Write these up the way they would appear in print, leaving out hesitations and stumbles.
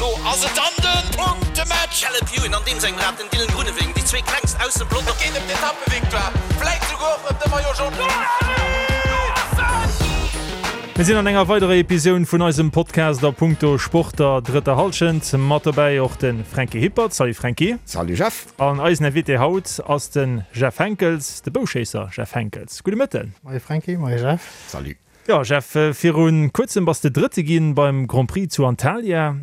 Elo ass et dann de Punktematch! Caleb Ewan an deem sengem Rad, den Dylan Groenewegen, déi zwee klengst aus dem Pelotong. Et geet ëm d'Etappevictoire, vläit souguer och ëm de Maillot Jaune. Mir sinn an enger weiderer Episoun vun eisem Podcast a punkto Sport der drëtter Hallschent. Mat dobäi och de Franky Hippert. Salut Franky. Salut Jeff. An eisen Invité haut ass de Jeff Henckels, de Bouschéisser Jeff Henckels. Gudde Mëtten. Moie Franky, moie Jeff. Salut. Jo Jeff, viru kuerzem bass de Drëtte ginn beim Grand Prix zu Antalya.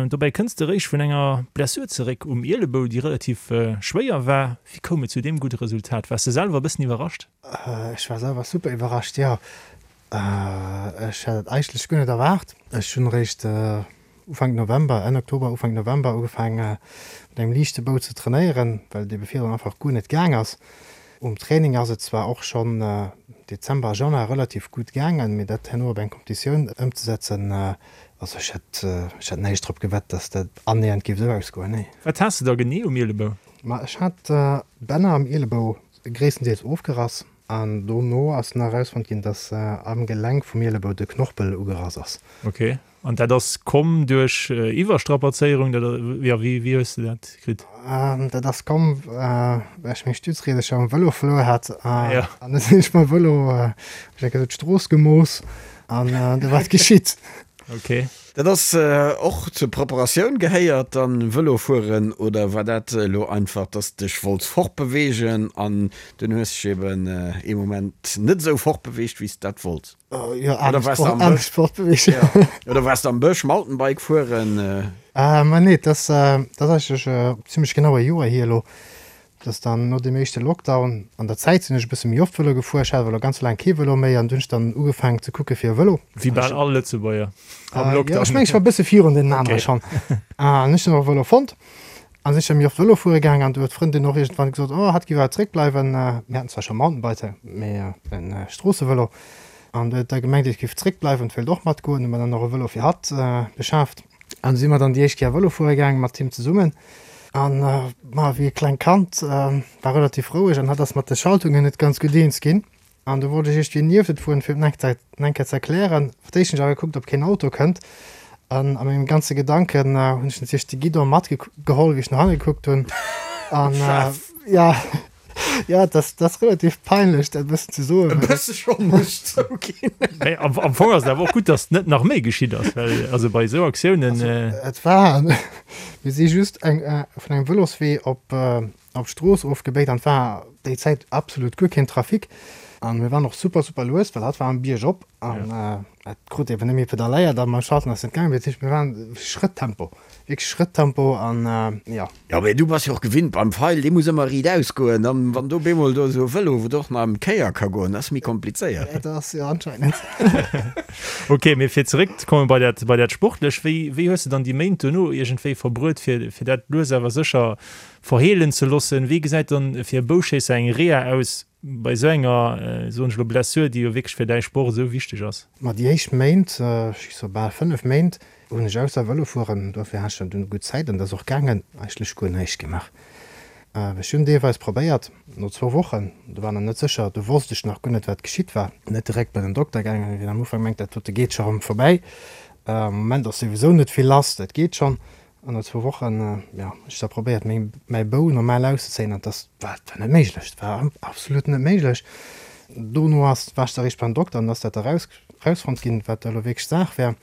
Dobäi kënns de réischt vun enger Blessur zeréck um Ielebou, déi relativ schwéier war. Wéi koum et zu deem gudde Resultat? Waars de selwer e bëssen iwwerrascht? Ech war selwer super iwwerrascht, jo. Ech hat et eigentlech guer net erwaart. Ech hunn réischt Ufank November, Enn Oktober, Ufank November ugefaange mat engem liichte Bou ze trainéieren, well et ebe virdrun einfach guer net gaang ass. Um Training ass et zwar och schonn Dezember a Januar relativ gutt gaangen, mee dat herno op eng Competitioun ëmzesetzen, also ech hätt, ech hätt näischt drop gewett, dass dat annähernd géif esou ausgoen, nee. Wat has de da genee um Ielebou? Ma ech hat d'Bänner am Ielebou gréisstendeels ofgerass an dono ass nach erausfonnt ginn, dass am Gelenk vum Ielebou de Knorpel ugerass ass. Ok. An dat ass komm duerch Iwwerstrapazéierung, dat, jo, wéi, wéi hues de dat kritt? Dat ass komm, well ech meng Stützriedercher um Vëlo verluer hat. An da sinn ech mam Vëlo, hu ech eng Kéier esou d'Strooss gemooss an du war et geschitt. Ok. Dat ass och zur Preparatioun gehéiert dann Vëlo fueren, oder war dat elo einfach, dass dech wollts fortbeweegen an dunn hues dech eben ee Moment net esou fortbeweegt wéi s de dat wollts? Jo, Oder waars de am Bësch? Fortbeweegen. Ja. Oder waars de am Bësch Mountainbike fueren? Ma nee, dat ass, dat ass eigentlech zimmlech genau e Joer hier elo. Dat ass dann no deem éischte Lockdown. An der Zäit sinn ech e bësse méi oft Vëlo gefuer. Ech hat awer elo ganz laang kee Vëlo méi an du hunn ech dann ugefaangen ze kucke fir e Vëlo. Wéi bal all Lëtzebuerger am Lockdown. Jo, ech mengen, ech war e bësse virun deenen anere schonn. An ech hunn och e Vëlo fonnt. An sinn ech da méi oft Vëlo fuere gaang an du huet d'Frëndin och iergendwann gesot, oh hatt géif awer zréckbleiwen. Mir haten zwar scho Mountainbiker, mee e Stroossevëlo. An du huet da gemengt, ech géif zréckbleiwen, wéilt och matgoen. Hu mer dann och e Vëlo fir hatt beschaaft. An du si mer dann déi éischt Kéier Vëlo fuere gaang mat him zesummen. An ma wéi e klengt Kand, war relativ roueg an hatt ass mat de Schaltungen net ganz gutt eens ginn. An du wollt ech iergendwéi nieft et fueren, fir et eng Kéier ze erklären. Fir d'éischt hunn ech awer gekuckt, ob keen Auto kënnt. An a mengem ganze Gedanken hunn ech natierlech de Guidon matgeholl, wéi ech no hanne gekuckt hunn. An jo, jo, dat ass, dat ass relativ peinlech, dat e bëssen ze soen. E bësse schonn, muss ech zouginn. Mee am Fong ass et awer och gutt, datt net nach méi geschitt ass, well also bei esou Aktiounen. Also et war, mir si just eng vun engem Vëloswee op Op d'Strooss ofgebéit an et war déi Zäit absolut guer keen Trafic an mir waren och super super lues, well hatt war am Bierg op an et krut eben net méi pedalléiert a mam Schalten ass net gaangen. Dat heescht mir waren Schrëttempo, wierklech Schrëttempo an jo. Jo mee du bass jo och gewinnt beim Feil, dee muss ëmmer riit aus goen an wann do bemol do esou e Vëlo wou och nach ëm d'Kéier ka goen, dat ass méi komplizéiert. Dat ass jo anscheinend. Ok, mee fir zeréck ze kommen bei dat bei dat Sportlech, wéi wéi hues de dann déi Méint dono iergendwéi verbruet fir fir dat lues awer sécher Verheelen ze loossen. Wéi gesäit dann fir e Bouschéisser eng Reha aus bei esou enger, soen ech elo, Blessur, déi jo wierklech fir däi Sport esou wichteg ass? Ma déi éischt Méint, ech soe bal 5 Méint, hunn ech ausser Vëlo fueren, dofir hat ech dann dunn gutt Zäit an et ass och gaangen, eigentlech guer näischt gemaach. Ech hunn deelweis probéiert, no zwou Wochen, do war nach net sécher, do wosst ech nach guer net wat geschitt war, net direkt bei den Dokter gaangen, wien am Ufank mengt, dat dote geet scho rëm vorbäi, am Moment ass souwisou net vill lass, dat geet schonn. An no zwou Wochen, jo, ech da probéiert meng, mäi Bou normal auszezéien an dass war, war net méiglech, et war absolut net méiglech. Dono ass, war ech da eréischt beim Dokter an ass dat da raus, rausfonnt ginn, wat da elo wierklech Saach wär.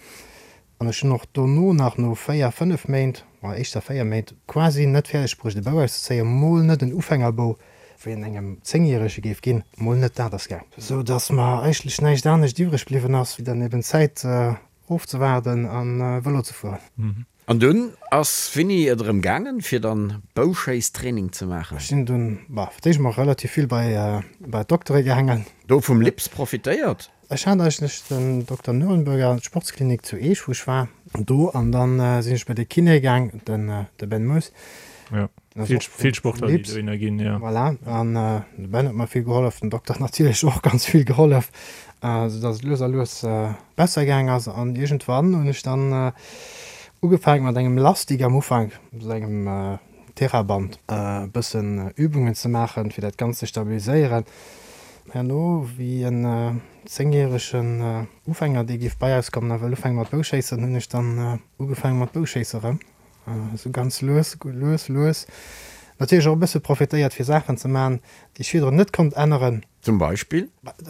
An ech hunn och dono nach no 4, 5 Méint, ma éischter 4 Méint, quasi net fäerdeg bruecht e Bou auszezéien, mol net en Ufängerbou, wéi en engem Zéngjärege géif ginn, mol net dat ass gaang. Sou dass mer eigentlech näischt anescht iwwreg bliwwen ass, wéi dann eben d'Zäit ofzewaarden a Vëlo ze fueren. An dunn ass winni et erëm gaangen fir dann Bouschéisstraining ze maachen? Ech sinn dunn, bah, fir d'éischt mol relativ vill bei bei d'Doktere gaangen. Do vum Lips profitéiert? Ech hat eigentlech den Dokter Nurenburger an d'Sportsklinik zu Eech wou ech war do an dann sinn ech bei de Kiné gaang, den de Ben Moes. Jo, vill vill Sportler déi dohinner ginn, jo. Voilà, an de Ben huet mer vill gehollef, den Dokter huet natierlech och ganz vill gehollef, sou dass et lues a lues besser gaang ass. An iergendwann hunn ech dann ugefaangen mat engem Lastik am Ufank, sou engem Theraband, e bëssen Übungen ze maachen, fir dat Ganzt ze stabiliséieren. Herno, wéi en. zéngjäregen Ufänger, dee géif bei eis kommen a wëll ufänke mat Bouschéissen, hunn ech dann ugefaange mat Bouschéisse rëm. Esou ganz lues, lues, lues. Natierlech och e bësse profitéiert fir Saachen ze maachen, déi ech virdrun net konnt änneren. Zum Beispill?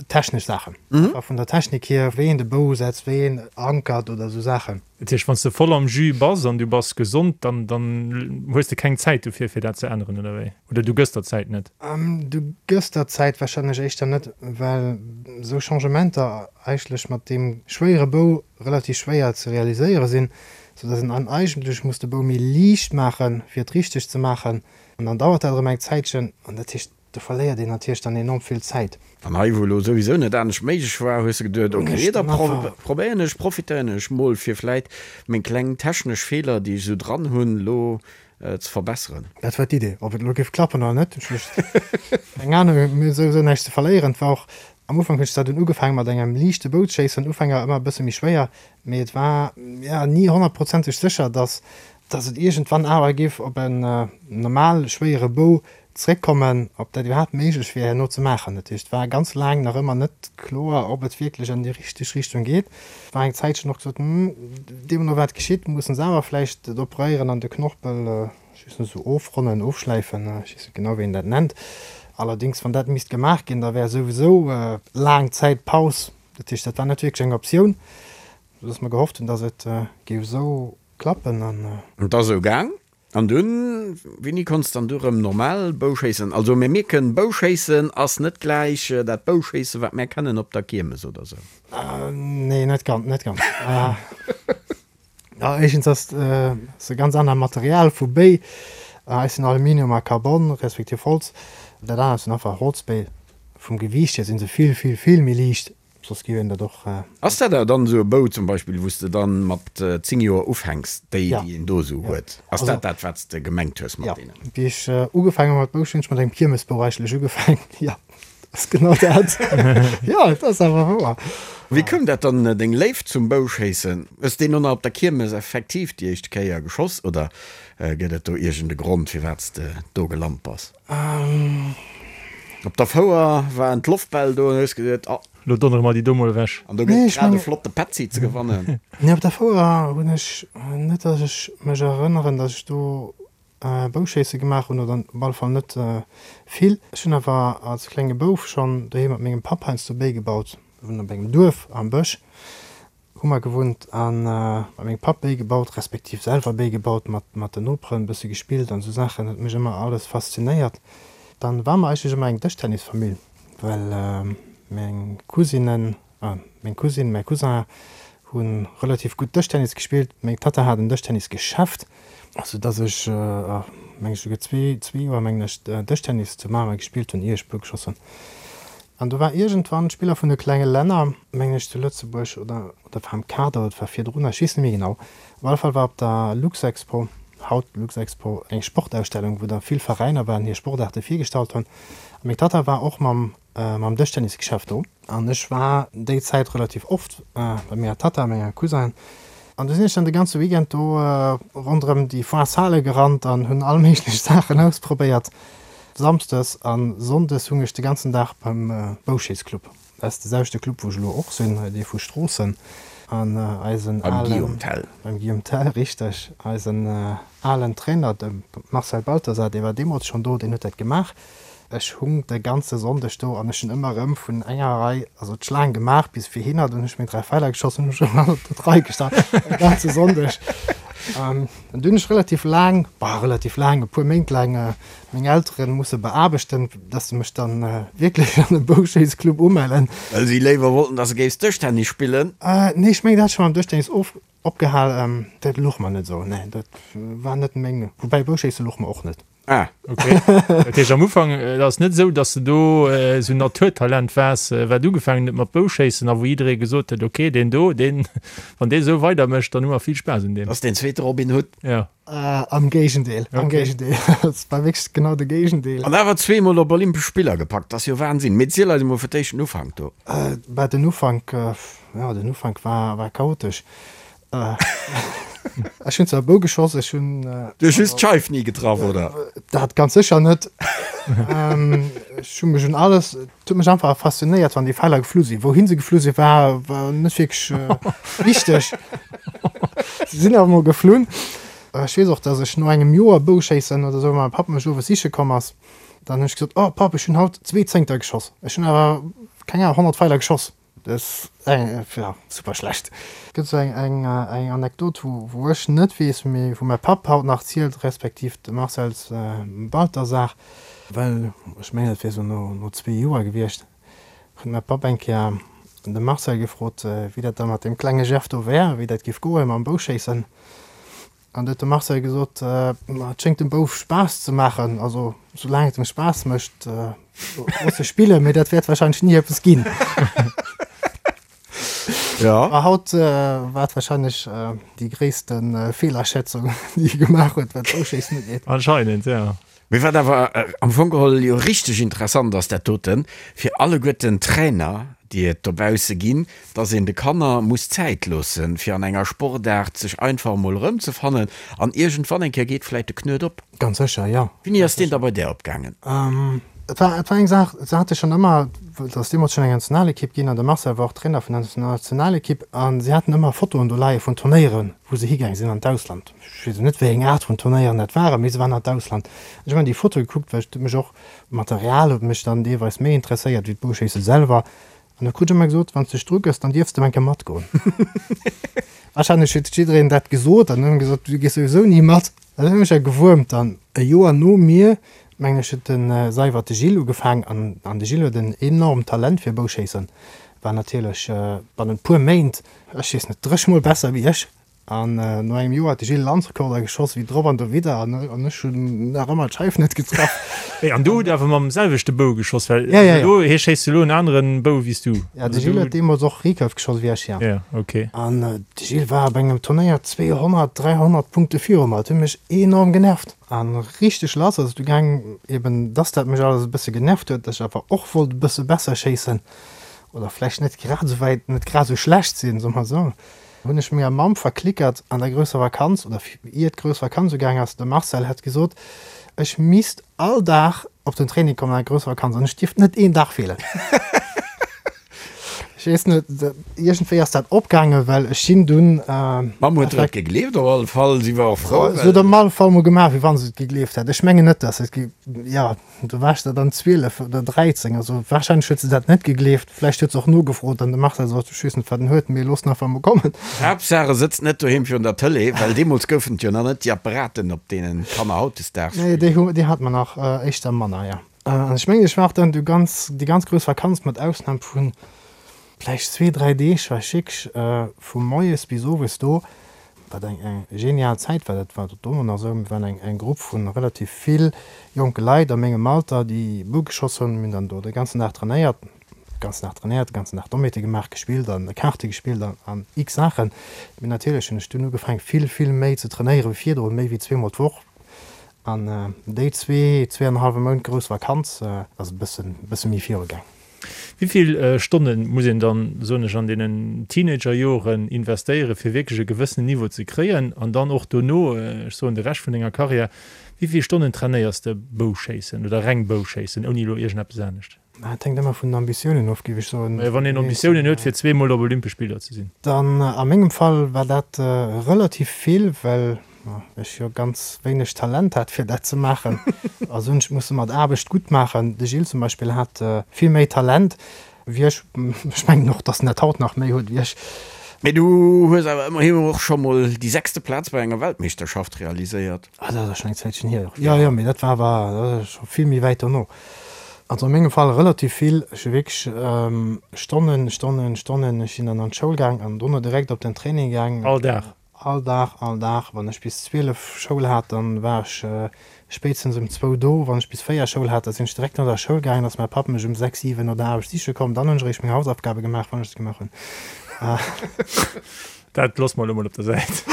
Technesch Saachen. Einfach vun der Technik hier, wéi een de Bou setzt, wéi een ankert oder esou Saachen. Dat heescht, wann s de voll am Jus bass an du bass gesond, dann dann hues de keng Zäit dofir, fir dat ze änneren, oder wéi? Oder du gëss der d'Zäit net? Du gëss der d'Zäit warscheinlech éischter net, well esou Changementer eigentlech mat deem schwéiere Bou relativ schwéier ze realiséiere sinn, soudass een dann eigentlech muss de Bou méi liicht maachen, fir et richteg ze maachen. An dann dauert dat erëm eng Zäitchen. An dat heescht, do verléiert een natierlech dann enorm vill Zäit. An hei, wou elo souwisou net anescht méiglech war, hues de geduet, ok, da probéieren ech, profitéieren ech mol, fir vläit meng kleng technesch Feeler, déi ech esou dran hunn, elo ze verbesseren. Dat war d'Idee. Ob et elo géif klappen oder net, ech hu keng Anung. Mir hu souwisou näischt ze verléieren. Et war och, am Ufank hunn ech zwar dunn ugefaange mat engem liichte Boutschéissen, Ufänger ëmmer e bësse méi schwéier, Mee et war jo ni honnertprozenteg sécher, dass dass et iergendwann awer géif op en normal schwéiere Bou zréckkommen, ob dat iwwerhaapt méiglech wier herno ze maachen. Dat heescht, et war ganz laang nach ëmmer net kloer, ob et wierklech an déi richteg Richtung geet. Et war eng Zäitchen och gesot, Hm, deemno wat geschitt, mussen se awer vläicht et operéieren an de Knorpel, ech weess net, esou ofronnen, ofschläifen, ech weess net genau, wéi een dat nennt. Allerdéngs, wann dat misst gemaach ginn, da wär souwisou laang Zäit Paus. Dat heescht, dat war net wierklech eng Optioun, soudass mer gehofft hunn, dass et géif esou klappen. An. Et ass esou gaang. An dunn, wéini konns dann du erëm normal Bouschéissen? Also mir mierken, Bouschéissen ass net gläich dat Bouschéissen, wat mär kennen op der Kiermes oder sou. Nee, net ganz, net ganz. Éischtens ass et e ganz anert Material vu Béi. Eis sinn Aluminium a Carbon, respektiv Holz. Dat anert sinn einfach Holzbéi. Vum Gewiicht hier si se vill, vill, vill méi liicht. Soss géif een dat och. Ass dat awer dann esou e Bou zum Beispill, wou s de dann mat 10 Joer ufänks, déi, déi een do esou huet? Ass dat dat, wat s de gemengt hues mat deenen? Jo, wéi ech ugefaangen hu mat Bouschéissen, hunn ech mat engem Kiermesbou eigentlech ugefaangen, jo. Dat ass genau dat. Jo, et ass awer wouer. Wéi koum dat dann, deng Léift zum Bouschéissen? Hues deen och nach op der Kiermes effektiv déi éischt Kéier geschoss oder gëtt et do iergend e Grond, firwat s de do gelant bass? Op der Fouer waren d'Loftbäll do an hues geduet, oh. Lo donnere mer déi do mol ewech. An do gëtt et grad e flotte Petzi ze gewannen. Nee, op der Fouer hunn ech net, datt ech mech erënneren, datt ech do Bouschéisse gemaach hunn, oder op alle Fall net vill. Ech hunn awer als klenge Bouf schonn doheem mat mengem Papp heiansdo Béi gebaut. Mir wunnen op engem Duerf am Bësch, hu mer gewunnt, a mat mengem Papp Béi gebaut, respektiv selwer Béi gebaut, mat mat den Noperen e bësse gespillt an esou Saachen. Dat huet mech ëmmer alles faszinéiert. Dann war mer eigentlech ëmmer eng Dëschtennisfamill, well meng Cousinen Meng Cousine, mäi Cousin hu relativ gutt Dëschtennis gespillt. Meng Tatta hat en Dëschtennisgeschäft, sou dass ech, meng ech, souguer zwee Joer, mengen ech, Dëschtennis zu Mamer gespillt hunn, ier ech Bou geschoss hunn. An do war iergendwann d'Spiller vun de klenge Länner, mengen ech, zu Lëtzebuerg oder oder war am Kader oder et war virdrun, ech weess net méi genau. Op alle Fall war op der Luxexpo, haut Luxexpo, eng Sportausstellung, wou da vill Veräiner waren, hir Sportaarte virgestallt hunn. A meng Tatta war och mam mam Dëschtennisgeschäft do. An ech war déi Zäit relativ oft bei menger Tatta a menger Cousinen. An du sinn ech dann de ganze Weekend do ronderëm déi Foire-Sale gerannt an hunn all méiglech Saachen ausprobéiert. Samsdes a Sonndes hung ech de ganzen Dag beim Bouschéissclub. Dat ass de selwechte Club, wou ech elo och sinn, dee vu Stroossen. An eisen alen. Beim Guillaume Tell. Beim Guillaume Tell, richteg. Eisen alen Trainer, de Marcel Balthasar, dee war deemools schonn do, deen huet dat gemaach. Ech hung de ganze Sonndeg do an ech hunn ëmmer erëm vun enger Rei, also d'Schlaang gemaach bis virhinner, dunn hunn ech meng 3 Feiler geschoss, hunn ech erëm op d'Rei gestan, de ganze Sonndeg. An dunn hunn ech relativ laang, bah, relativ laang, e puer Méint laang meng Eltere musse beaarbechten, dass se mech dann wierklech an e Bouschéissclub umellen. Well si léiwer wollten, dass de géifs Dëschtennis spillen? Nee, ech mengen, dat hat scho mam Dëschtennis of, opgehal. Dat louch mer net esou, nee, dat war net meng, woubäi Bouschéisse louch mer och net. Ah, ok. Dat heescht am Ufank, et ass net esou, datt s de do esou en Naturtalent waars, wat ugefaangen huet mat Bouschéissen a wou jidderee gesot huet, ok, deen do, deen, wann dee esou weidermécht, dann hu mer vill Spaass un deem. Ass deen zweete Robin Hood. Jo. Am Géigendeel, am Géigendeel. Et war wierklech genau de Géigendeel. An awer zweemol op Olympesch Spiller gepackt, ass jo Wahnsinn. Mee ziel eis emol fir d'éischt den Ufank do. Bah, den Ufank, jo, den Ufank war, war chaotesch. Ech hunn zwar Bou geschoss, ech hunn. Du hues just d'Scheif ni getraff, oder? Dat ganz sécher net. Ech hu mech un alles, et huet mech einfach faszinéiert, wann déi Feiler geflu sinn. Wouhin se geflu sinn, war war net wierklech wichteg. Se sinn awer mol geflunn. Ech weess och, datt ech no engem Joer Bouschéissen oder esou, mäi Papp mech owes siche komm ass, dann hunn ech gesot, Oh Papp, ech hunn haut zwee Zéngter geschoss. Ech hunn awer, keng Ahnung, 100 Feiler geschoss. Dat ass jo super schlecht. Et gëtt esou eng Anekdot, wou ech net weess, mee wou mäi Papp haut nach zielt, respektiv de Marcel's Balthasar, well ech mengen, et wier esou no zwee Joer gewiescht, huet mäi Papp eng Kéier de Marcel gefrot, wéi dat da mat deem klenge Jeff do wär, wéi dat géif goe mam Bouschéissen. An du huet de Marcel gesot, Ma et schéngt dem Bouf Spaass ze maachen, also soulaang et em Spaass mécht, looss e spillen, mee dat wäert warscheinlech ni eppes ginn. Ja. A haut war et warscheinlech déi gréisste Feelaschätzung, déi e gemaach huet, wat d'Bouschéissen ugeet. Anscheinend, ja. Mee wat awer am Fong geholl jo richteg interessant ass, dat doten, fir alleguerten d'Trainer, déi et dobausse ginn, dass een de Kanner muss Zäit loossen, fir an enger Sportaart sech einfach emol erëmzefannen an iergendwann eng Kéier geet vläit de Knuet op. Ganz sécher, jo. Wéini ass deen da bei där opgaangen? Et war, et war eng Saach, se hate schonn ëmmer, et ass deemools schonn eng Nationalekipp ginn an de Marcel war och Trainer vun der Nationalekipp a si haten ëmmer Fotoen do leie vun Turnéieren, wou se higaang sinn an d'Ausland. Ech weess net, wéi eng Aart vun Turnéieren dat waren, mee se waren an d'Ausland. Ech hunn ëmmer déi Fotoe gekuckt, well et huet mech och, d'Material huet mech dann deelweis méi interesséiert wéi d'Bouschéisse selwer. An da krut ech ëmmer gesot, Wann s de dech drugëss, dann dierfs de eng Kéier matgoen. Warscheinlech huet jiddereen dat gesot an hunn gesot, Du gees souwisou ni mat. Dat huet mech ja gewuermt. An e Joer no mir, mengen ech, huet de Seiwert de Gilles ugefaang. An an de Gilles huet en enormt Talent fir Bouschéissen, war natierlech bannent puer Méint, ech weess net, dréch mol besser wéi ech. An no engem Joer huet de Gilles Landsrekorder geschoss, wéi drop an dowidder, an ech hunn nach ëmmer d'Scheif net getraff. Hey, an du hutt awer mam selwechte Bou geschoss, well Ja, ja, ja. elo, hie schéisst elo en aneren Bou wéi s du. Ja, de Gilles huet deemools och Recurve geschoss wéi ech, ja. Ja, okay. An de Gilles war op engem Turnéier 200, 300 Punkte viru mer. Dat huet mech enorm genervt. A richteg lass ass et du gaang, eben dass dat mech alles e bësse genervt huet, dass ech awer och wollt e bësse besser schéissen oder vläicht net grad esou wäit, net grad esou schlecht sinn, soe mer esou. Hunn ech menger Mamm verklickert an der grousser Vakanz, oder ier d'grouss Vakanz ugaang ass, de Marcel hätt gesot, ech misst all Dag op den Training kommen an der grousser Vakanz an ech dierft net een Dag feelen. Ech weess net, iergendwéi ass dat opgaangen, well ech sinn dunn. D'Mamm huet der et gegleeft op alle Fall, si war och frou, well. Se huet op alle Fall mol gemaach, wéi wa se et gegleeft hätt. Ech mengen net, dass se et, jo. Do war ech der dann 12 oder 13, also wahrscheinlech huet se dat net gegleeft. Vläicht huet se och nogefrot an de Marcel sot, ech weess net wat en huet, mee looss en einfach mol kommen. Haaptsaach e sëtzt net doheem virun der Tëlee, well deemools goufen et jo nach net déi Apparaten op deenen d'Kanner hautdesdaags Nee, déi hu, déi hate mer nach éischter manner, jo. An ech mengen, ech war och dann du ganz, déi ganz grouss Vakanz, mat Ausnam vu vläicht zwee, dräi Deeg, war ech wierklech vu moies bis owes do. Wat eng eng genial Zäit war, dat war dono nach esou, mir waren eng eng Grupp vu relativ vill jonke Leit a mengem Alter, déi Bou geschoss hunn. Mir hunn dann do de ganzen Dag trainéiert, de ganzen Dag trainéiert, de ganzen Dag Domméte gemaach, gespillt an Kaarte gespillt an an x Saachen. Mee natierlech hunn ech dunn ugefaangen, vill, vill méi ze trainéiere wéi virdrun, méi wéi zweemol d'Woch. An déi zwee, zwee an e hallwe Mount grouss Vakanz ass e bëssen, e bësse méi virugaang. Wéi vill Stonne muss een dann, soen ech, an deenen Teenagerjoren investéieren, fir wierklech e gewëssenen Niveau ze kréien? An dann och dono, ech soen de Rescht vun denger Karriär, wéi vill Stonnen trainéiers de Bouschéissen oder reng Bouschéissen, ouni elo iergendeppes anescht? Dat hänkt ëmmer vun den Ambitiounen of, géif ech soen. Majo, wann een Ambitiounen huet, fir zweemol op Olympesch Spiller ze sinn. Dann, a mengem Fall war dat relativ vill, well ech jo ganz wéineg Talent hat fir dat ze maachen. Also hunn ech musse mat Aarbecht gutt maachen. De Gilles zum Beispill hat vill méi Talent wéi ech. Ech mengen och, datt en dat haut nach méi huet wéi ech. Mee du hues awer ëmmerhi och scho mol déi sechste Plaz bei enger Weltmeeschterschaft realiséiert. Ah, dat ass schonn eng Zäitchen hier. Jo, jo, mee dat war awer scho vill méi wäit dono. Also a mengem Fall relativ vill. Ech hu wierklech Stonnen, Stonnen, Stonnen. Ech sinn dann an d'Schoul gaang an dono direkt op den Training gaang. All Dag? All Dag, all Dag. Wann ech bis 12 Schoul hat, dann war ech spéitstens um zwou do. Wann ech bis 4 Schoul hat, da sinn ech direkt no der Schoul gaangen, ass mäi Papp mech um 6, 7 no der Aarbecht siche komm. Dann hunn ech eréischt meng Hausaufgabe gemaach, wann ech se gemaach hunn. Dat loosse mer elo mol op der Säit.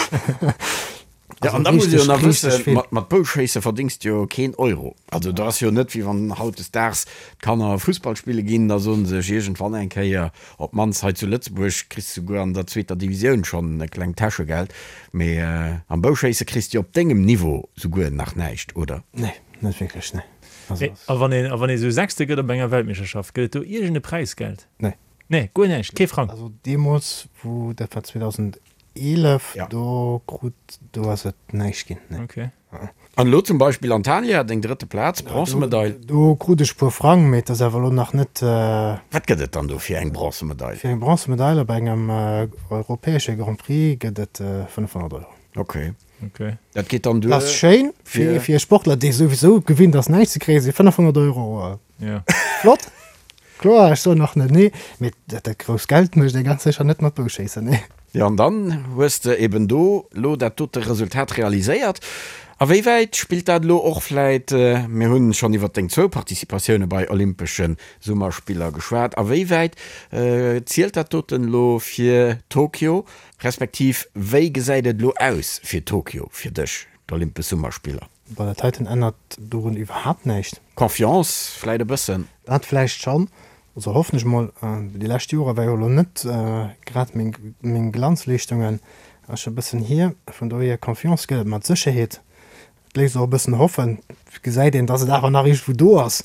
Ja, an da muss ee jo nach wëssen, mat, mat Bouschéisse verdéngs de jo keen Euro. Also dat ass jo net, wéi wann hautdesdaags d'Kanner Fussball spille ginn, da soen se sech iergendwann eng Kéier, op d'mannst hei zu Lëtzebuerg kriss de souguer an der zweeter Divisioun schonn e klengt Täschegeld, mee am Bouschéisse kriss de jo op dengem Niveau souguer nach näischt, oder? Nee, net wierklech, nee. Also. A wann een, a wann ee sou Sechste gëtt op enger Weltmeeschterschaft, gëtt et do iergend e Präisgeld? Nee. Nee, guer näischt, kee Frang? Also deemools, wou, dat war 2011, do krut, do ass et näischt ginn, nee. Okay. An elo zum Beispill Antalya, deng drëtte Plaz, Bronzemedail. Do krut ech e puer Frang, mee et ass awer elo nach net. Wat gëtt et dann do fir eng Bronzemedail? Fir eng Bronzemedail op engem europäesche Grand Prix gëtt et 500 Euro. Ok. Dat geet dann duer. Dat ass schéin fir e Sportler, dee souwisou gewinnt ass näischt ze kréien, si 500 Euro flott. Kloer, ech soen och net nee, mee dat grousst Geld mécht ee ganz sécher net mat Bouschéissen, nee. Jo, an dann hues de eben do lo dat dote Resultat realiséiert. A wéi wäit spillt dat elo och vläit, mir hunn schonn iwwert deng zwou Participatioune bei Olympesche Summerspiller geschwat, a wéi wäit zielt dat doten elo fir Tokio, respektiv wéi gesäit et elo aus fir Tokio fir dech, d'Olympesch Summerspiller? Bei der Titan ännert dorun iwwerhaapt näischt. Confiance vläit e bëssen? Dat vläicht schonn, also hoffen ech mol. Déi lescht Jore war jo elo net grad meng Glanzleeschtungen, ass scho e bëssen hier. Vun dohier Confiance gëtt et mat Sécherheet. Et léisst och e bëssen hoffen, et gesäit een, datt et awer nach iergendwou do ass.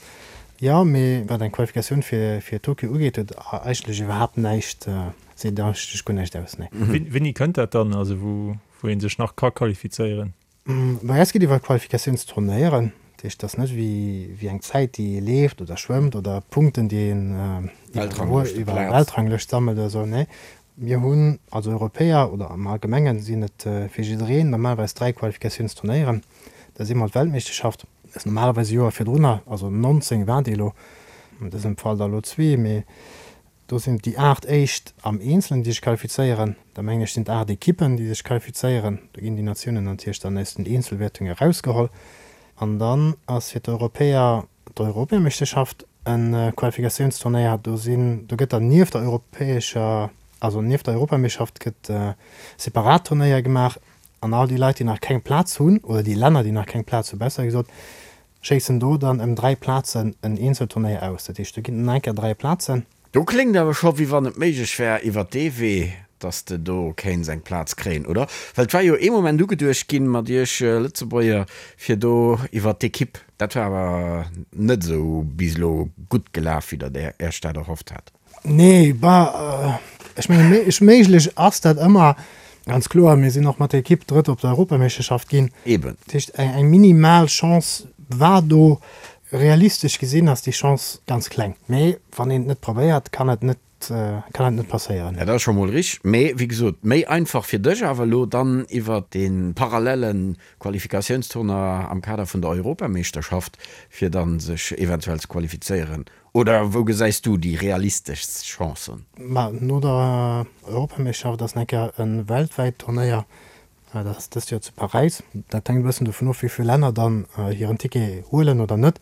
Jo, mee wat eng Qualifikatioun fir Tokio ugeet, huet eigentlech iwwerhaapt näischt, seet eigentlech guer näischt aus, nee. Wéini kënnt dat dann, also wou ee sech nach ka qualifizéieren? Bei eis geet iwwer Qualifikatiounsturnéieren, dat heescht, et ass net wéi eng Zäit, déi ee leeft oder schwëmmt oder Punkten, déi een iwwer Weltranglëscht sammelt oder esou. Nee, mir hunn als Europäer oder am Allgemengen sinn et fir jiddereen normalerweis 3 Qualifikatiounsturnéieren. Dat ass eemol d'Weltmeeschterschaft, dat ass normalerweis e Joer virdrunner, also 19 war déi elo, an dësem Fall der elo zwee, mee Do sinn et déi 8 éischt am Eenzelen, déi sech qualifizéieren. Da mengen ech sinn et 8 Ekippen, déi sech qualifizéieren. Do ginn déi Natiounen natierlech dann aus den Eenzelwäertunge erausgeholl. An dann ass fir d'Europäer d'Europameeschterschaft e Qualifikatiounsturnéier. Do sinn, do gëtt dann nieft der europäescher, also nieft der Europameeschterschaft gëtt separat Turnéier gemaach. An all déi Leit, déi nach keng Plaz hunn, oder déi Länner, déi nach keng Plaz hunn, besser gesot, Schéissen do dann ëm 3 Plazen en Eenzelturnéier aus. Dat heescht, do ginn et nach eng Kéier 3 Plazen. Do kléngt awer scho wéi wann et méiglech wär iwwer dee Wee, dass de do kéints eng Plaz kréien, oder? Well et war jo ee Moment ugeduecht ginn mat iech Lëtzebuerger fir do iwwer d'Ekipp. Dat war awer net esou bis elo gutt gelaf, wéi der Iech dat erhofft hat. Nee, bah, ech mengen, méiglech ass dat ëmmer. Ganz kloer, mir sinn och mat der Ekipp Drëtt op der Europameeschterschaft ginn. Eben. Dat heescht, eng minimal Chance war do. Realistesch gesinn ass déi Chance ganz kleng. Mee wann een et net probéiert, kann et net, kann et net passéieren. Dat ass scho mol richteg. Mee wéi gesot, méi einfach fir dech awer elo dann iwwer dee parallelle Qualifikatiounstournoi am Kader vun der Europameeschterschaft, fir dann sech eventuell ze qualifizéieren. Oder wou gesäis du déi realisteschst Chancen? Ma no der Europameeschterschaft ass nach eng Kéier e weltwäit Turnéier, dat ass dëst Joer zu Paräis. Dat hänkt e bëssen dovun of, wéi vill Länner dann hiren Ticket huelen oder net.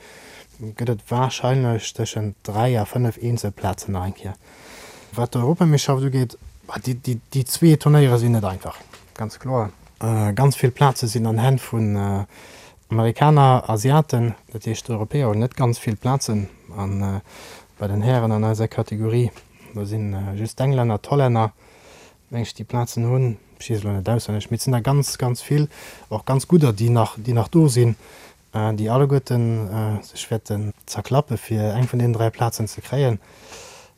Gëtt et warscheinlech tëschent 3 a 5 Eenzelplazen nach eng Kéier. Wat d'Europameeschterschaft ugeet, déi zwee Turnéiere sinn net einfach, ganz kloer. Ganz vill Plaze sinn an Hänn vun Amerikaner, Asiaten, dat heescht d'Europäer hunn net ganz vill Plazen. A bei den Hären an eiser Kategorie, do si just d'Englänner, d'Hollänner, meng ech, déi Plazen hunn. Ech weess elo net auswenneg, mee et sinn der ganz, ganz vill, och ganz gudder, déi nach, déi nach do sinn, déi alleguerten sech wäerten zerklappe fir eng vun deenen 3 Plazen ze kréien.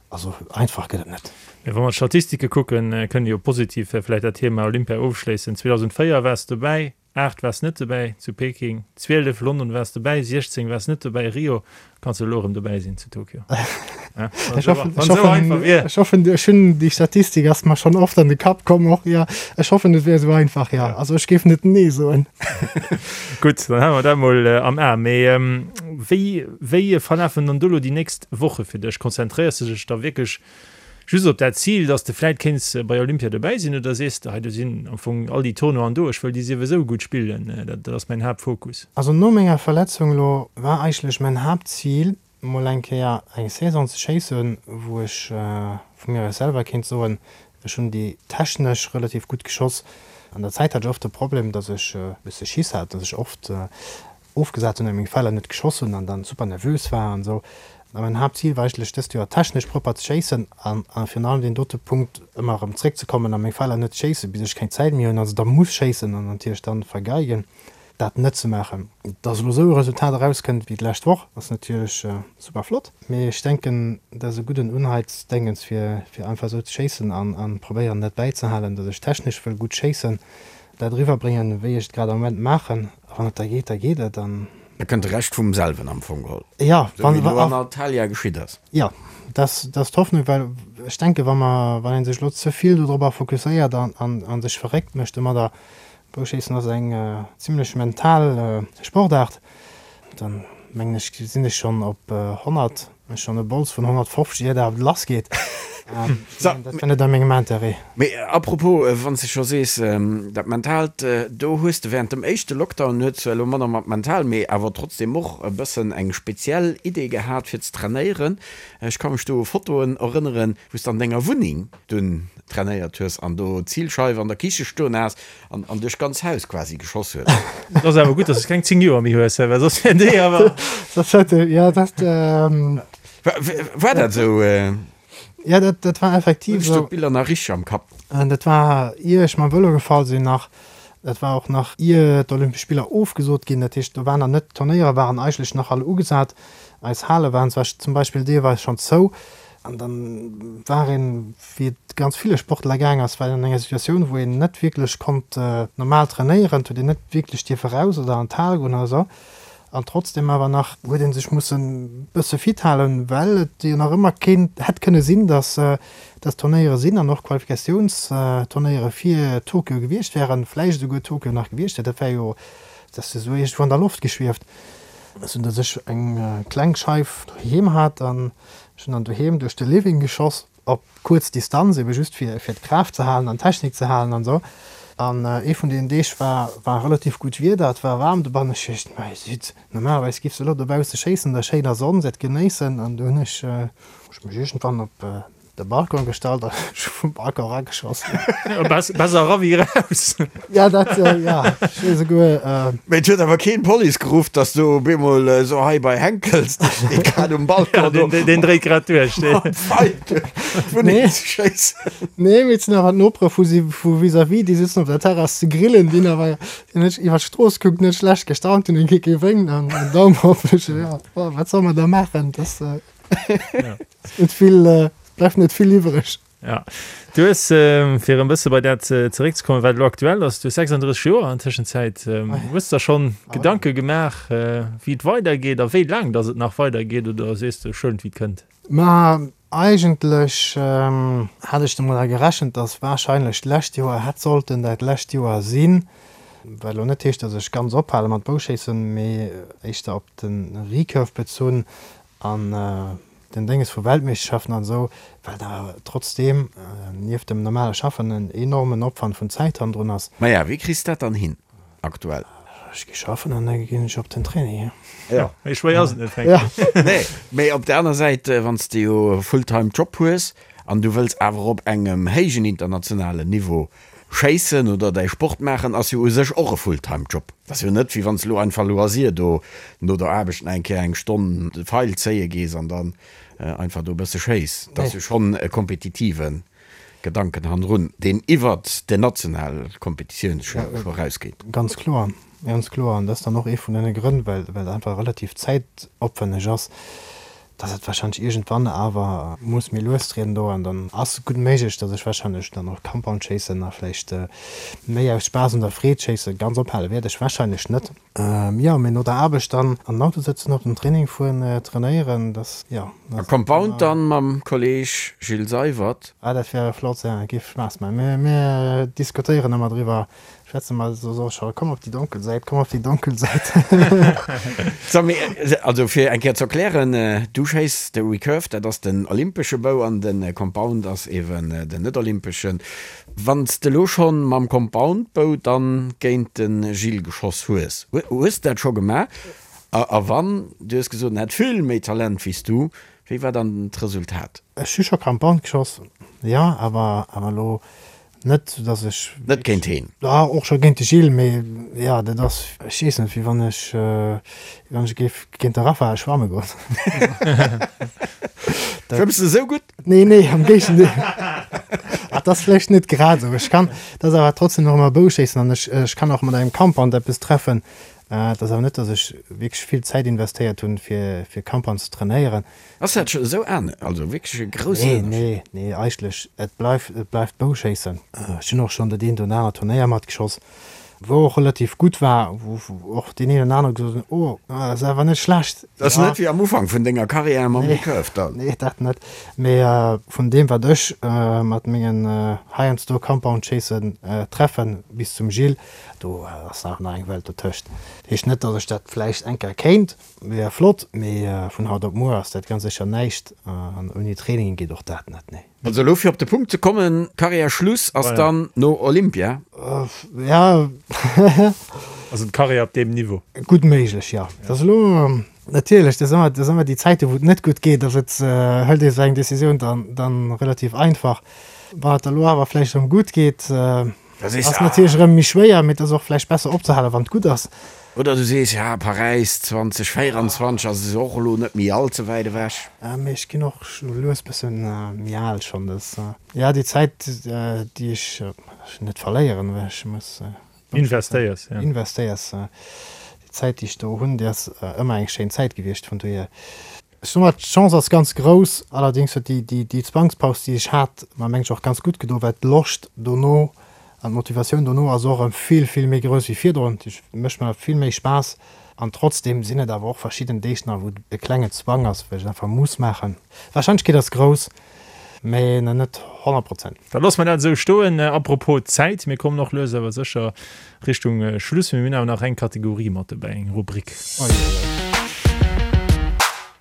Also einfach gëtt et net. Mee wa mer d'Statistike kucken, kënne jo positiv vläicht dat Thema Olympia ofschléissen. 2004 waars de dobäi, 8 waars net dobäi zu Peking, 12 London waars dobäi, 16 waars net dobäi Rio, kanns de elo erëm dobäi sinn zu Tokio. Ech hoffen, ech hoffen, ech hoffen, ech hunn déi Statistik ass mer schonn oft an de Kapp komm och, jo. Ech hoffen et wär esou einfach, jo. Also ech géif net nee soen. Gutt, dann hale mer dat mol am A. Mee wéi, wéi verlafen dann do elo déi nächst Woche fir dech? Konzentréiers de dech da wierklech Just op dat Zil, dass de vläit kéints bei Olympia dobäi sinn, oder sees de, hei do sinn am Fong all déi Tournoien do, ech wëll déi siwesou gutt spillen, dat ass mäin Haaptfokus? Also no menger Verletzung elo war eigentlech mäin Haaptzil mol eng Kéier eng Saison ze schéissen, wou ech vu mir aus selwer kéint soen, ech hunn déi technesch relativ gutt geschoss. An der Zäit hat ech oft de Problem, dass ech e bësse Schiss hat, dass ech oft ofgesat hunn a meng Feller net geschoss hunn an dann super nervös war an esou. A mäin Haaptzil war eigentlech dëst Joer technesch propper ze schéissen an virun allem deen dote Punkt ëmmer erëm zréckzekommen a meng Feller net ze schéissen, bis ech keng Zäit méi hunn a se da muss schéissen an natierlech dann vergeigen. Dat net ze maachen. Dass elo esou e Resultat erauskënnt wéi d'lescht Woch, ass natierlech super flott, mee ech denken, dat ass e gudden Unheizdéngens fir fir einfach esou ze schéissen an an probéieren dat bäizehalen, dass ech technesch wëll gutt schéissen, dat eriwwerbréngen, wéi ech et grad am Moment maachen. A wann et da geet, da geet et an. Da kënnt de Rescht vum selwen am Fong geholl. Jo, Esou wéi elo an Antalya geschitt ass. Jo, dat ass d'Hoffnung, well ech denken, wa mer, wann ee sech elo ze vill dodropper fokusséiert an an sech verréckt mécht domadder, Bouschéissen ass eng zimlech mental Sportaart. Dann mengen ech sinn ech schonn op 100, ech schonn e Bols vun 150 ier dat lass geet. Dat wär net a mengem Interêt. Mee apropos, wann s de scho sees dat Mentaalt, do hues de während dem éischte Lockdown, huet zwar elo manner mat mental, mee awer trotzdem och e bëssen eng speziell Idee gehat fir ze trainéieren. Ech ka mech do u Fotoen erënneren, wou s de an denger Wunneng dunn trainéiert hues an do d'Zilscheif an der Kiche stoen has an an duerch d'ganz Haus quasi geschoss hues. Et ass awer gutt, dass s keng 10 Joer méi hues, well soss wär déi awer. Soss hätt e, jo, dat. War dat esou? Jo, dat, dat war effektiv esou. Hunn ech do d'Biller nach richteg am Kapp? Dat war ier ech mam Vëlo gefall sinn nach. Dat war och nach ier d'Olympesch Spiller ofgesot ginn. Dat heescht, do waren nach net, d'Turnéiere waren eigentlech nach all ugesat. Eis Hale waren zwar zum Beispill deelweis schonn zou. An dann war een, wéi et ganz ville Sportler gaang ass, war een an enger Situatioun, wou een net wierklech konnt normal trainéieren, et huet een net wierklech dierfe raus oder an d'Hal goen oder esou. An trotzdem awer nach huet ee sech mussen e bësse fit halen, well et jo nach ëmmer kéint, hätt kënne sinn, dass dass Turnéiere sinn an och Qualifikatiounsturnéiere fir Tokio gewiescht wären, vläicht esouguer Tokio nach gewiescht wär. Dat wär jo, dat ass jo esou iergendwou an der Loft geschwieft, esou dass ech eng kleng Scheif doheem hat an Ech hunn dann doheem duerch de Living geschoss, op kuerz Distanz, ebe just fir fir d'Kraaft ze halen an d'Technik ze halen an esou. An ee vun deenen Deeg war war relativ gutt Wieder, et war waarm dobannen. Ech duecht, mei sidd, normalerweis giffs de elo dobausse schéissen an der schéiner Sonn, se et genéissen. An du hunn ech ech mech iergendwann op de Balcon gestallt an ech hu vum Balcon erageschoss. Besser era wéi eraus. Ja, dat, ja, ech hu esouguer. Mee et huet awer keen d'Police geruff, dass do op eemol esou hei bei Henkels, dee steet grad um Balcon do. Ja, deen dréit grad duerch. Mam Pfeil duerch d'Wunneng ze schéissen. Nee, mee et sinn awer d'Nopere vu si, vu vis-à-vis, déi sitzen op der Terrass ze grillen, déi hunn awer, déi hunn net iwwer d'Strooss gekuckt, net schlecht gestaunt, hunn e gewénkt an en Daum op. Ja, wat soll mer da maachen? Dat Net vill, bleift net vill iwwreg. Ja. Du hues, fir e bësse bei dat zeréckzekommen, wat elo aktuell ass, du hues 36 Joer an Tëschenzäit. Hues der schonn Gedanke gemaach, wéi et weidergeet a wéi laang datt et nach weidergeet oder sees de, ech huelen et wéi et kënnt? Ma eigentlech hat ech domadder gerechent, datt warscheinlech d'lescht Joer hätt sollten dat lescht Joer sinn. Wat elo net heescht, datt ech ganz ophale mat Bouschéissen, mee éischter op de Recurve bezunn An den Dénges vu Weltmeeschterschaften an esou, well da trotzdeem nieft dem normale Schaffen en enormen Opwand vun Zäit hannendrun ass. Maja, wéi kriss dat dann hin aktuell? Ech gi schaffen an da ginn ech op den Training. Jo. Méi schwéier ass et net, fänken. Nee, mee op der aner Säit, wann s de jo e Fulltime Job hues an du wëlls awer op engem héijen internationalen Niveau Schéissen oder däi Sport maachen ass jo u sech och e Fulltime Job. Et ass jo net wéi wann s elo einfach loisir do no der Aarbecht nach eng Kéier eng Stonn de Feil zéie gees an dann einfach do e bësse schéiss. Et ass jo schonn e kompetitive Gedanken hannendrun, deen iwwert den nationale Kompetitiouns scho erausgeet. Ganz kloer, ganz kloer. An dat ass dann och ee vun deene Grënn, well et einfach relativ zäitopwänneg ass. dass et wahrscheinlech iergendwann awer muss méi lues trieden do an dann ass et gutt méiglech, dass ech wahrscheinlech dann och Compound schéissen a vläicht méi aus Spaass un der Freed schéissen. Ganz ophale wäert ech wahrscheinlech net. Jo, mee no der Aarbecht dann an den Auto sëtzen, op den Training fueren, trainéieren, dass, jo. A Compound dann mam Kolleg Gilles Seywert. Ah, dat wär flott, jo, géif Spaass maachen. Mir, mir diskutéieren ëmmer driwwer, Schwätze mer so so scho, komm op déi donkel Säit, komm op déi donkel Säit. So, mee, also fir eng Kéier ze erklären, du schéiss de Recurve, dat ass den olympesche Bou an de Compound ass eeben den net-olympeschen. Wann s de elo schonn mam Compound-Bou dann géint de Gilles geschoss hues, hues de dat scho gemaach? A wann, du hues gesot, en hätt vill méi Talent wéi s du, wéi war dann d'Resultat? Ech hu scho Compound geschoss, jo, awer awer elo. Net, datt ech. Net géint heen? Ja, och scho géint de Gilles, mee jo, dat ass, ech weess net, wéi wann ech, wéi wann ech géif géint de Raphael schwamme goen. Schwëmms de esou gutt? Nee, nee, am Géigendeel. Ah, dat ass vläicht net grad esou. Ech kann, dat ass awer trotzdem nach ëmmer Bouschéissen an ech, ech kann och mat engem Compound eppes treffen. Et ass awer net, datt ech wierklech vill Zäit investéiert hunn, fir, fir Compound ze trainéieren. Ass dat scho esou an, also wierklech e groussen Ënnerscheed? Nee, nee, eigentlech, et bleift, et bleift Bouschéissen. Ech hunn och schonn dat eent oder anert Turnéier matgeschoss, wou och relativ gutt war, wou och deen een oder anere gesot huet, oh, ass awer net schlecht. Dat ass net wéi am Ufank vun denger Karriär mam Recurve dann? Nee, dat net. Mee vun deem, wat ech mat mengen heiansdo Compound-Chasen treffen, bis zum Gilles, do ass nach eng Welt dotëscht. Heescht net, datt ech dat vläicht eng Kéier kéint. Wier flott, mee vun haut op muer ass dat ganz sécher näischt an ouni Training geet och dat net, nee. Also elo fir op de Punkt ze kommen, Karriär Schluss ass dann no Olympia? Ja. Also d'Karriär op deem Niveau? Gutt méiglech, jo. Dat ass elo natierlech, dat ass ëmmer déi Zäiten, wou et net gutt geet, ass et, hëlt ee sou eng Decisioun dann relativ einfach. Wann et da elo awer vläicht erëm gutt geet, Ass natierlech erëm méi schwéier, mee et ass och vläicht besser opzehalen, wann et gutt ass. Oder du sees, ja, Paräis 2024 ass och elo net méi all ze wäit ewech. Mee ech ginn och lues bësse méi al schonn. Dat, ja, déi Zäit, déi ech net verléieren, well ech muss. Investéiers, ja. Investéiers. Déi Zäit, déi ech do hunn, déi ass ëmmer eng schéin Zäit gewiescht, vun dohier. Ech soe mol, d'Chance ass ganz grouss. Allerdéngs huet déi Zwangspaus, déi ech hat, mer mengen ech och ganz gutt gedo, well d'Loscht dono an d'Motivatioun dono ass och erëm vill, vill méi grouss wéi virdrun. Et mécht mer vill méi Spaass. An trotzdeem sinn et awer och verschidden Deeg nach, wou et e klengen Zwang ass, wou ech et einfach muss maachen. D'Warscheinlechkeet ass grouss, mä nach net 100 Prozent. Da loosse mer dat esou stoen. Apropos Zäit, mir kommen och lues awer sécher Richtung Schluss. Mir hunn awer nach eng Kategorie mat dobäi, eng Rubrik.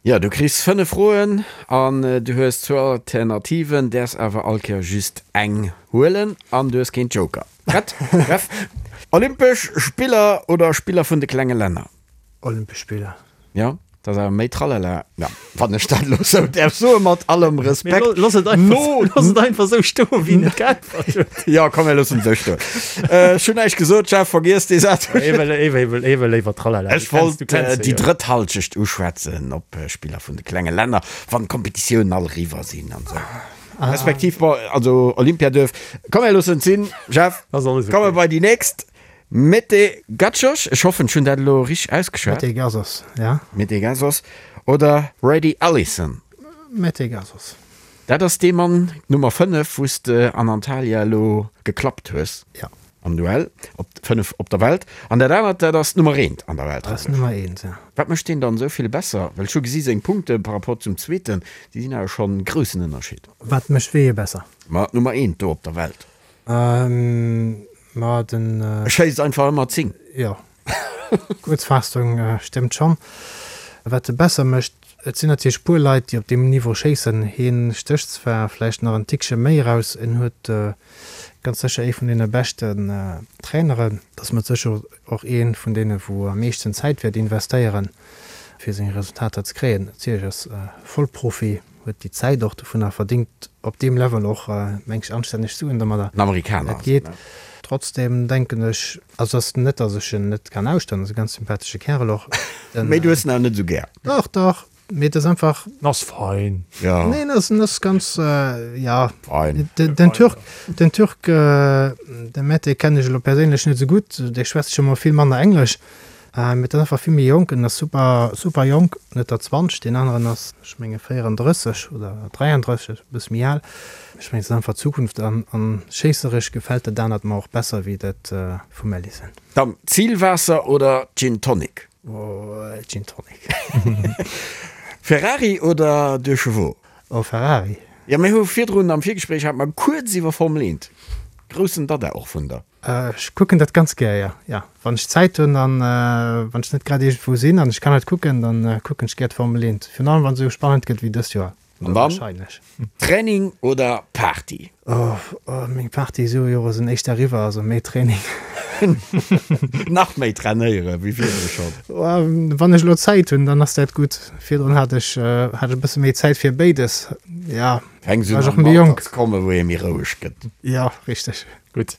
Jo, du kriss 5 Froen an du hues zwou Alternativen, däerfs awer all Kéier just eng huelen an du hues keen Joker. Prett? Jeff? Olympesch Spiller oder Spiller vun de klenge Länner? Olympesch Spiller. Jo, dat ass awer méi Tralala. Ja, wann ech dat elo sou däerf soen, mat allem Respekt. Mee looss et einfach, looss et einfach sou stoen, wéi en et geäntwert huet. Jo, komm, mir loossen et sou stoen. Ech hunn näischt gesot, Jeff, vergiess dee Saz. Ee wëll, ee wëll, ee wëll léiwer Tralala. Ech wollt déi drëtt Halschecht uschwätzen op Spiller vun de klenge Länner, wann d'Kompetitiounen all eriwwer sinn an esou. Respektiv, bon, also Olympia duerf. Komm, mir loossen et sinn, Jeff. Komme bei déi nächst. Mete Gacsos, ech hoffen ech hunn dat elo richteg ausgeschwat. Mete Gasos, ja. Mete Gasos oder Brady Ellison? Mete Gasos. Dat ass dee Mann, Nummer 5, wou s de an Antalya elo geklappt hues. Ja. Am Duell op 5 op der Welt. An dat anert, dat ass d'Nummer 1 an der Welt. Dat ass d'Nummer 1, ja. Wat mécht deen dann esou vill besser? Well ech hu gesi seng Punkte par rapport zum zweeten, déi sinn awer schonn e groussen Ënnerscheed. Wat mécht wéi ee besser? Ma d'Nummer 1 do op der Welt. Ma den. E schéisst einfach ëmmer 10. Jo, Kuerzfaassung stëmmt schonn. Wat e besser mécht, et sinn natierlech puer Leit, déi op deem Niveau schéissen. Hien stécht zwar vläicht nach en Tickche méi eraus, en huet ganz sécher ee vun deene beschten Traineren, et ass mat sécher och ee vun deene wou am meeschten Zäit wäert investéieren, fir seng Resultater ze kréien. Natierlech ass Vollprofi. Huet déi Zäit och dovunner verdingt op deem Level och meng ech anstänneg Suen domadder. En Amerikaner ass et, ne? Trotzdem denken ech, also ass net dass ech en net kann ausstoen, ass e ganz sympathesche Kärel och. Mee du hues en awer net esou gär? Dach, dach, mee et ass einfach. En ass fein. Jo. Nee, en ass, en ass ganz, ja. Fein. Den Türk, den Türk, de Mete kennen ech elo perséinlech net esou gutt, dee schwätzt scho mol vill manner Englesch. Mee et ass einfach vill méi jonk, en ass super super jonk, net der 20, deen aneren ass ech menge 34 oder 33, e bësse méi al. Ech mengen et ass einfach d'Zukunft an an schéisseresch gefält dat anert mer och besser wéi dat vum Ellison. Dann Zilwaasser oder Gin Tonic? Oh Gin Tonic. Ferrari oder Deux Chevaux? Oh Ferrari. Jo mir hu virdrun am Virgespréich hate mer kuerz iwwer Formel 1, groussen Dada och vun der. Ech kucken dat ganz gär, jo. Jo, wann ech Zäit hunn an wann ech net grad iergendwou sinn an ech kann et kucken, dann kucken ech gär d'Formel 1. Virun allem wann se esou spannend gëtt wéi dëst Joer. An dann, Training oder Party? Oh, meng Party-Jore sinn éischter eriwwer, also méi Training. Nach méi trainéiere wéi virdru schonn? Wann ech elo Zäit hunn, dann ass dat gutt. Virdrun hat ech hat ech e bësse méi Zäit fir béides. Ja, Fänks un an Alter ze kommen, wou ee méi roueg gëtt. Ja, richteg. Gutt.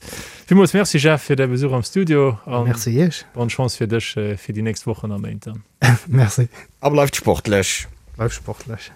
Villmools Merci Jeff fir däi Besuch am Studio an Merci iech. Bonne Chance fir dech fir déi nächst Wochen a Méint dann. Merci. A bleift sportlech. Bleift sportlech.